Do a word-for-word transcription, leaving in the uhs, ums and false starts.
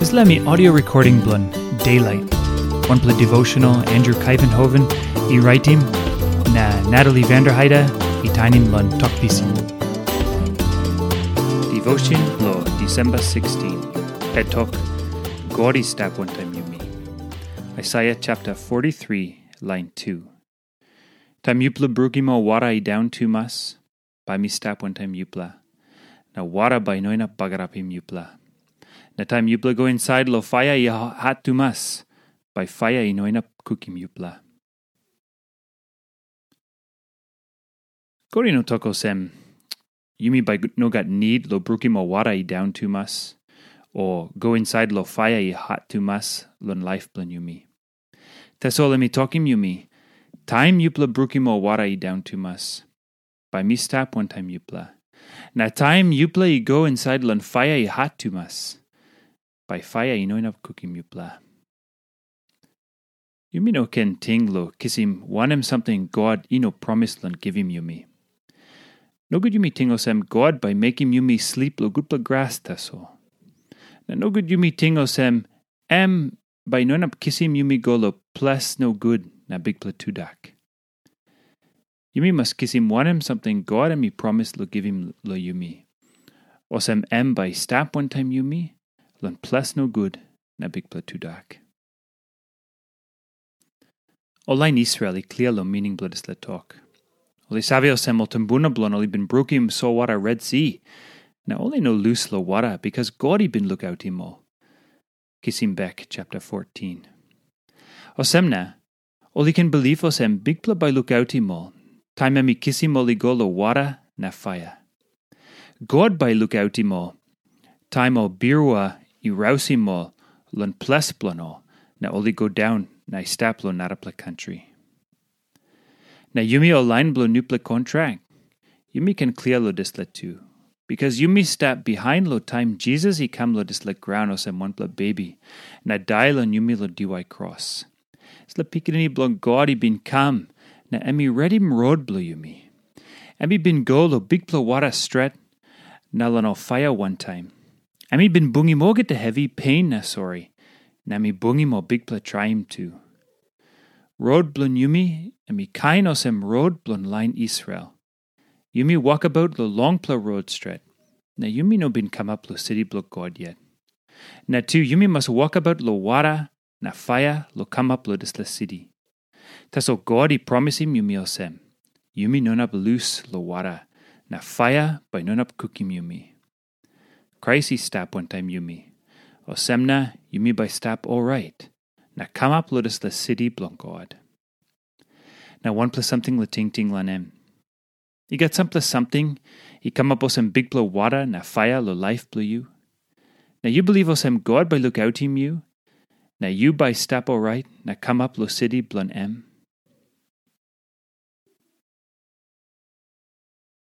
Dispela mi audio recording bilong Daylight, wanpela devotional Andrew Kaivenhoven i raitim, na Natalie Vanderheide i tainim long Tok Pisin. Devotion lo December sixteen. Het tok, God i stap wantaim yumi. Isaiah chapter forty-three, line two. Taim yupela brukim ol wara i daun tumas, bai mi stap wantaim yupela, na wara bai i no inap bagarapim yupela. Na taim yupela go insait lo faia i ha-, hat tumas, bai faia i no inap kukim yupela. God i no tok olsem, yumi bai no gat nid lo brukim ol wara i daun tumas, o go insait lo faia i hat tumas long laip bilong yumi. Tasol em i tokim yumi, taim yupela brukim ol wara i daun tumas, bai mi stap wantaim yupela. Na taim yupela i go insait long faia i hat tumas, bai faia i no inap kukim yupela. Yumi no ken ting lo kisim wanem samting God i no promis long givim yumi. Nogut yumi ting olsem God bai mekim yumi slip lo gutpela gras tasol. Na nogut yumi ting olsem em bai i no inap kisim yumi go lo ples nogut na bikpela tudak. Yumi mas kisim wanem samting God em i promis lo givim lo yumi. Olsem em bai i stap wantaim yumi long ples nogut na bikpela tudak. Ol lain Israel i klia long mining bilong dispela tok. Ol i save olsem ol tumbuna bilong ol i bin brukim solwara Red Si, na ol i no lus long wara, bikas God i bin lukautim ol. Kisim bek chapter fourteen. Olsem na, ol i ken bilip olsem Bikpela bai lukautim ol, taim em i kisim ol i go long wara na faia. God bai i lukautim ol, taim ol birua i rausim ol long ples bilong ol, na ol i go daun na i stap long narapela kantri. Na yumi ol lain bilong nupela kontrak, yumi ken klia long dispela tu, bikas yumi stap bihain long taim Jisas i kam long dispela graun olsem wanpela bebi, na dai long yumi long diwai kros. Dispela Pikinini bilong God i bin kam, na em i redim rot bilong yumi. Em i bin go long bikpela wara stret, na long ol faia wantaim. Em i bin bungim olgeta hevi, pein na sori, na em i bungim ol bikpela traim tu. Rot bilong yumi, em i kain olsem rot bilong lain Israel. Yumi wokabaut long longpela rot stret, na yumi no bin kamap long siti bilong God yet. Na tu yumi mas wokabaut long wara na faia long kamap long dispela siti. Tasol God i promisim yumi olsem, yumi no inap lus long wara, na faia bai no inap kukim yumi. Krais i stap wantaim yumi. Olsem na yumi bai stap orait, na kamap long dispela siti bilong God. Na wanpela samting long tingting long em. I gat sampela samting i kamap olsem bikpela wara na faia long laip bilong yu. Na yu bilip olsem God bai lukautim yu, na yu bai stap orait na kamap long siti bilong em.